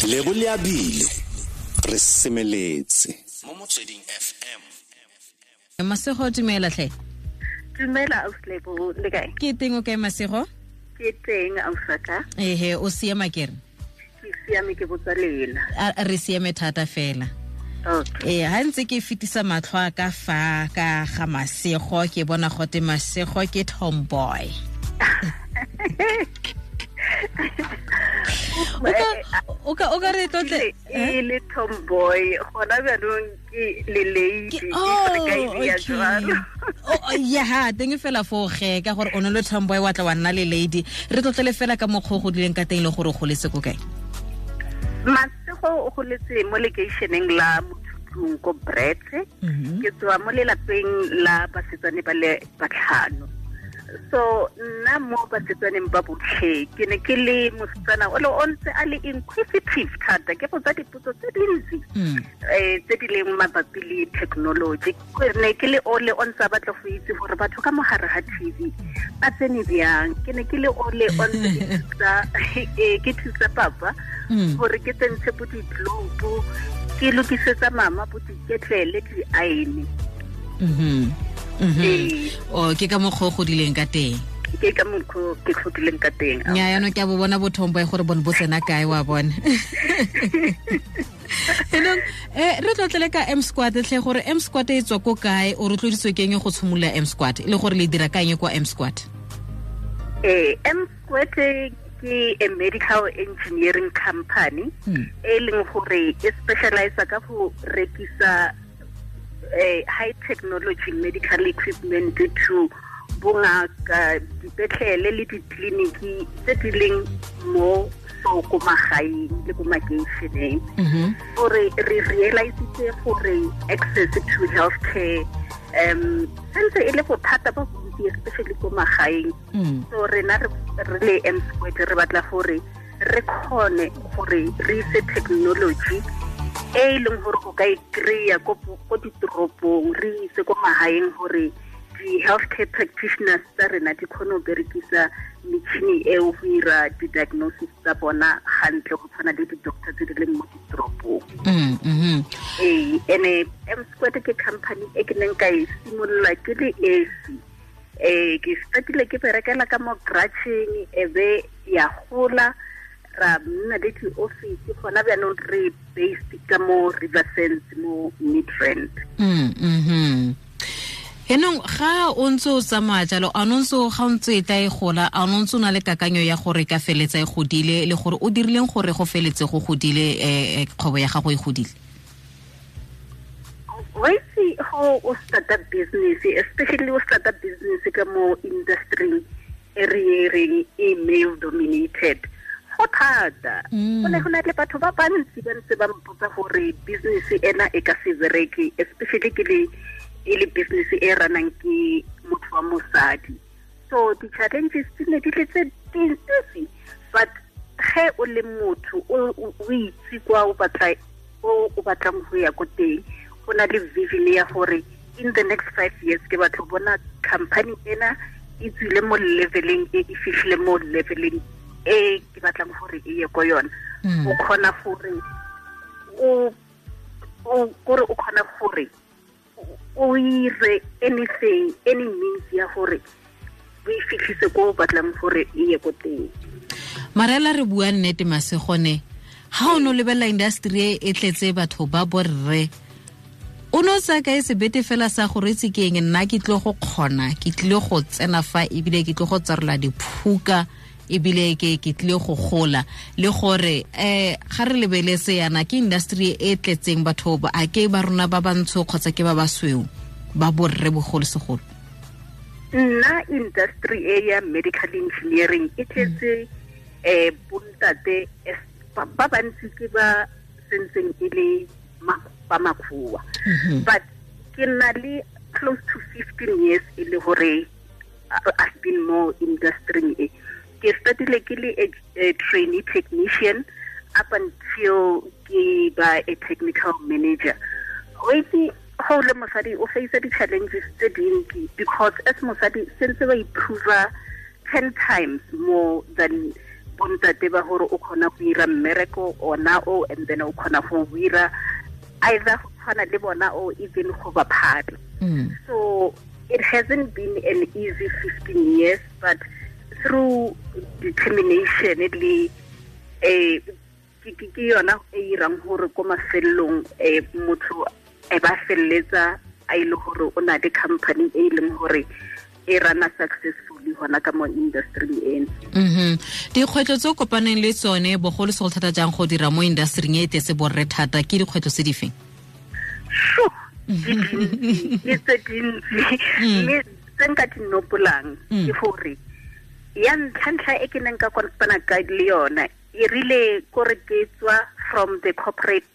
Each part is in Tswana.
Lebo Leabile re semeletse mo Motsweding FM. Masego, dumela tlhe. Dumela ausi, le kae? Ke teng, o kae Masego? Ke teng, ausaka. Ehe, o siama kere? Ke siame, ke botsa lena. Re siame thata fela. Okay. Ha ntse ke fetisa matlho a ka fa ka ga Masego, ke bona gote Masego ke tomboy. O ka re tlotle. E le tomboy, gona jaanong ke le lady. Oh, okay. Oh, ya teng fela fo ge ka gore o ne le tomboy, wa tla wa nna le lady. Re tlotlele fela ka mokgwa o godileng ka teng le gore o goletse ko kae. Masego o goletse mo lekeišeneng la Mothutlong ko Brits. Ke tswa mo lelapeng la basetsane ba le batlhano, so nna mo basetsaneng ba botlhe ke ne ke le mosetsana o le o ntse a le inquisitive thata, ke botsa dipotso tse dintsi tse di leng mabapi le technology. Ke ne ke le ole o ntse a batla go itse gore batho ka mogare ga TV ba tsene bjang. Ke ne ke le ole o ntse ke thusa papa gore ke tsentshe bo di-globe, ke lokisetsa mama bo diketlele, di-iron. Ee. O ke ka mokgwa o godileng ka teng. Ke ka mokgwa ke godileng ka teng. Nya, yaanong ke a bo bona botomboy gore bone bo tsena kae, wa bona. Enong re tlotlele ka M Squad tlhe, gore M Squad e tswa ko kae, o rotloeditswe ke eng go tshimolola M Squad, e le gore le dira ka eng kwa M Squad? M Squad ke a medical engineering company e leng gore e specialize ka go rekisa high technology medical equipment to bongaka, dipetlele le ditleliniki tse di leng mo so ko magaeng le ko makeišeneng, gore re realisitse gore access to healthcare sentse e le bothata ba bontsi, especially ko magaeng. So rena re le M Squared re batla gore re kgone gore re ise technology e e leng gore o ka e kry-a ko ditoropong, re ise ko magaeng, gore di-healthcare practitioners tsa rena di kgone go berekisa metšhini eo go ira di-diagnosis tsa bona gantle, go tshwana le di-doctor tse di leng mo ditoropong. Ee, ene M Squared ke company e ke neng ka e simolola ke le esi. Ke startile ke berekela ka mo garageng, e be ya gola, ra nna le di-office. Gona bjaanong re based ka mo Riversands mo Midrand. Enong ga o ntse o tsamaya jalo, a no ntse ga o ntse e tla e gola, a no ntse o na le kakanyo ya gore ka feletsa e godile, le gore o dirileng gore go feletse go godile, kgwebo ya gago e godile? Wa itse, go o starta business, especially o starta business ka mo industry e re e reng e male dominated, go thata. Go ne go na le batho ba bantsi ba ntse ba mpotsa gore business ena e ka se bereke, especially ke le e le business e ranang ke motho wa mosadi. So di-challenges di ne di le tse dintsi, but ge o le motho o itse kwa o batla o batlang go ya ko teng, o na le vision ya gore in the next 5 years ke batla go bona company ena e tswile mo leveleng e, e fitlhile mo leveleng e ke batlang gore e ye ko yona, o kgona gore o kore o kgona gore o ire anything, any means ya gore o e fitlhise ko o batlang gore e ye ko teng. Marela, re bua nnete, Masegone, ga o ne o lebelela industry e e tletse batho ba borre, o ne o tsaya kae sebete fela sa gore itse ke eng, nna ke tlile go kgona, ke tlile go tsena fa, ebile ke tlile go tsarola diphuka, ebile ke tlile go gola, le gore ga re lebeletse yana ke industry e tletseng batho ba, a ke ba rona ba bantsho kgotsa ke ba basweu ba borre bogolosegolo? Nna, industry e ya medical engineering e tletse bontate ba bantsi, ke ba sentseng e le ba makgowa, but ke na le close to 15 years e le gore I've been more industry e. Ke startile ke le a trainee technician up until ke ba a technical manager. O itse, go le mosadi o face di-challenges tse dintsi, because as mosadi sentse ba improve 10 times more than bontate ba gore o kgona go ira mmereko ona o, and then o kgona go ira either go tshwana le bona or even go ba phala. So it hasn't been an easy 15 years, but through determination le ke yona e irang gore ko mafelong motho e ba felletsa a ile gore o na le company e leng gore e rana successfully hona ka mo industry eno. Dikgwetlho tse o kopaneng le tsone bogolo segolo thata jang go dira mo industry e tletse borre thata, ke dikgwetlho tse di feng? Ke tse dintsi, mme tse nka di nopolang ke gore ya ntlha e ke neng ka kopana ka le yona e rile kore ke tswa from the corporate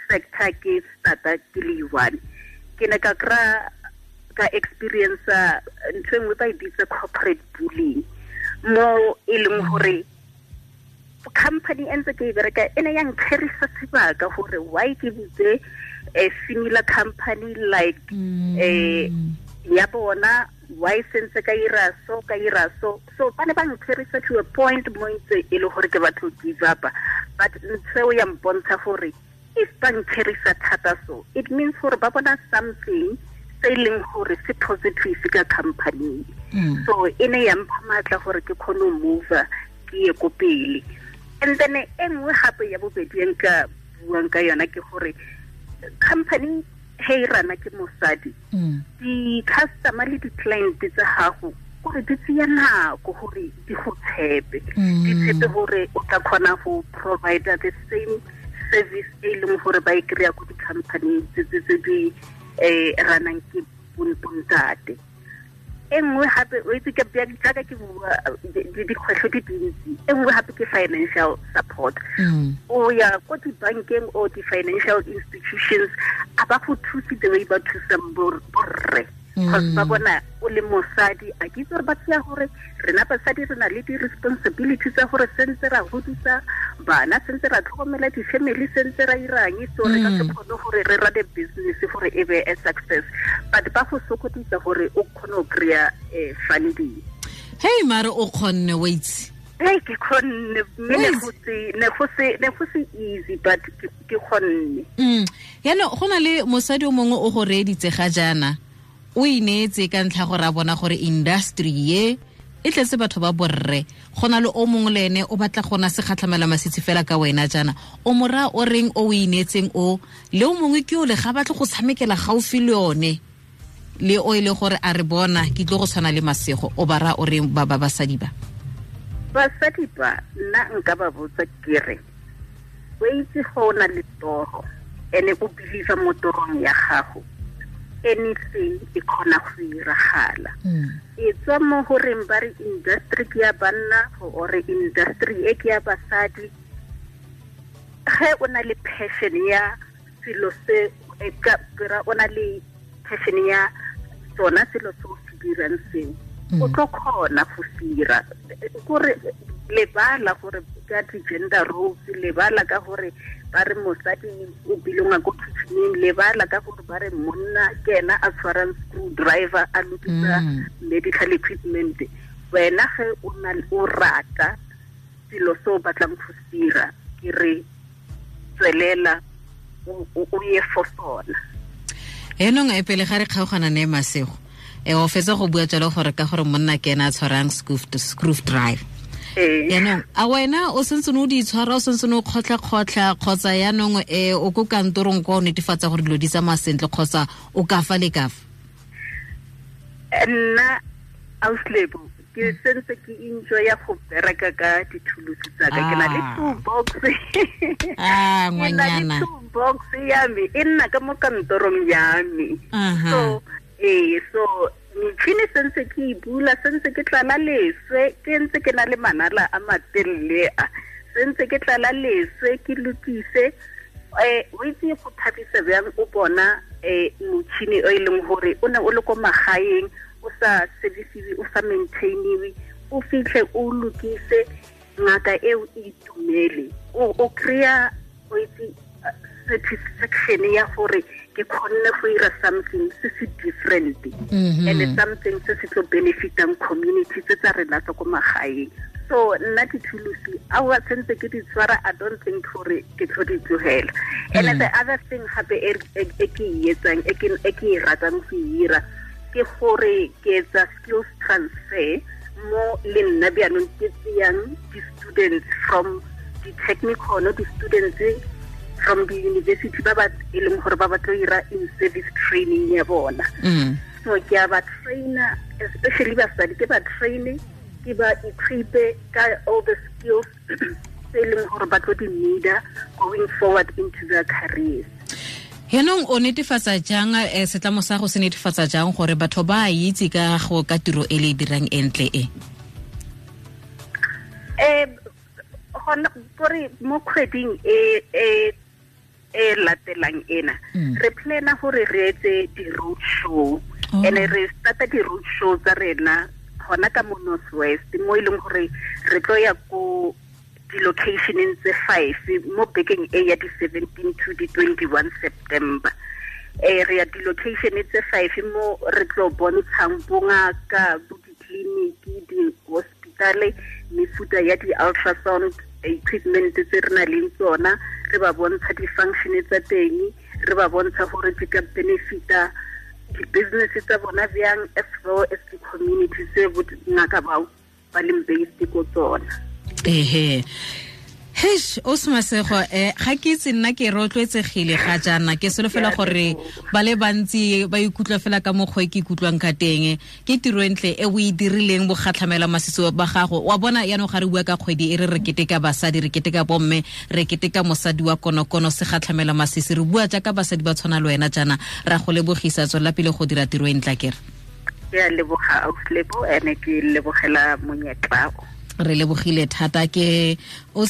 sector ke starta ke le one, ke ne ka kry-a ka experience ntho e nngwe ba e bitsa corporate bullying, mo e leng gore company e ntse ke e bereka e ne ya nkgerisa sebaka gore why ke butse a similar company like ya bona, why sentse ka ira so ka ira so. So ba ne ba nkgerisa to a point mo ntse e le gore ke batho give up, but ntho eo ya mpontsha gore if ba nkgerisa thata so it means gore ba bona something se e leng gore se positive ka company. So e ne ya mpha maatla gore ke kgone go move ke ye ko pele. And then e nngwe gape ya bobedi e nka buang ka yona ke gore company he e rana ke mosadi, di-customer le di-client tsa gago gore di tseya nako gore di go tshepe, di tshepe gore o tla kgona go provide the same service e leng gore ba e kry-a ko di-company tse di ranang ke bontate. E nngwe gape o itse ke jaaka ke bua dikgwetlho di dintsi, e nngwe gape ke financial support. O ya ko dibankeng or di-financial institutions a ba go thuse the way ba thusang borre, because ba bona o le mosadi. A ke itse gore ba tseya gore rena basadi re na le di-responsibility tsa gore sentse ra godisa bana, sentse ra tlhokomela di-family, sentse ra irang, so re ka se kgone gore re run business gore e be a success, but ba go sokodisa gore o kgone go kry-a funding. Hey mare o kgonne, wa itse. Hey, ke kgonne, mme ne go se easy, but ke kgonne. Yaanong go na le mosadi o mongwe o go reeditse ga jaana, o ineetse ka ntlha gore a bona gore industry ye e tletse batho ba borre, go na le o mongwe le ene o batla go na se kgatlhamela masitsi fela ka wena jaana, o mora o reng o ineetseng o le o mongwe ke o le ga batle go tshamekela gaufi le yone le o ile gore a re bona ke tlo go tshwana le Masego, o ba ra o reng ba ba basadi ba? Basadi ba nna nka ba botsa ke re o itse go na le toro ene o believe mo torong ya gago, anything e kgona go iragala. E tswa mo goreng ba re industry ke ya banna or industry e ke ya basadi, ge o na le passion ya selo se e ka o na le passion ya sona selo se o se dirang seo, o tlo kgona go se dira. Kore lebala gore ka di-gender roles, lebala ka gore ba re mosadi o belonga ko kitcheneng, lebala ka gore ba re monna ke ena a tshwarang screwdriver a lokisa medical equipment. Wena ge o na o rata selo se o batlang go se dira, ke re tswelela o ye for sona. Enong e pele ga re kgaogana ne Masego, o fetsa go bua jalo gore ka gore monna ke ena a tshwarang screwdriver. Yaanong a wena o sentse o di tshwara, o sentse o kgotlha-kgotlha, kgotsa yaanong o ko kantorong kwa o netefatsa gore dilo di tsamaya sentle, kgotsa o ka fa le ka fa? Nna auslebo ke sentse ke enjoya go bereka ka dithulusi tsa ka, ke na le toolbox. Ngwanyana. Toolbox ya me e nna ka mo kantorong ya me. So so metšhini sentse ke e bula, sentse ke tlala leswe, ke ntse ke na le manala a matelele a, sentse ke tlala leswe ke lokise. O itse go thabisa bjang o bona motšhini o e leng gore o ne o le ko magaeng, o sa servisiwe, o sa maintainiwe, o fitlhe o lokise, ngaka eo e itumele, o kry-a o itse satisfaction ya gore ke kgonne go ira something se se different, and something se se tlo benefitang community tse tsa rena tsa ko magaeng. So nna dithulusi a wa sentse ke di tshwara, I don't think gore ke tlo di tlogela. And the other thing gape e ke e etsang, e ke e ratang go ira, ke gore ke etsa skills transfer mo le nna bjaanong ke tseyang di-students from di-technical, di-students from the university ba ba e leng gore ba batlo ira in service training ya bona. So ke a ba trainer, especially basadi, ke ba traine, ke ba equipe ka all the skills tse e leng gore ba tlo di needa going forward into their careers. Yaanong o netefatsa jang, setlamo sa go se netefatsa jang gore batho ba itse ka go ka tiro e le e dirang entle e? Gona gore mo kgweding e e latelang ena, re plana gore re etse di-road show. And re starta di-road show tsa rena gona ka mo North West, mo e leng gore re tlo ya ko di-locationeng tse 5 mo bekeng e ya di-17 to di-21 September. Re ya di-location tse 5 mo re tlo bontshang bongaka, bo ditleliniki, di-hospitale, mefuta ya di-ultrasound equipment tse re nang le tsona, re ba bontsha di-function tsa teng, re ba bontsha gore di ka benefita di-business tsa bona bjang, as well as di-community tse bongaka bao ba leng based ko tsona. Ehe. Hesh, o Masego, ga ke itse nna ke rotloetsegile ga jaana, ke solofela gore ba le bantsi ba ikutlwa fela ka mokgwa e ke ikutlwang ka teng. Ke tiro e ntle e o e dirileng bogatlhamela masisi ba gago. Wa bona yaanong ga re bua ka kgwedi e re re keteka basadi, re keteka bomme, re keteka mosadi wa konokono segatlhamela masisi, re bua jaaka basadi ba tshwana le wena jaana. Ra go lebogisa, tswelela pele go dira tiro e ntle kere. Ke a leboga Ausi Lebo, ene ke lebogela monyetla. Re lebogile thata ke o.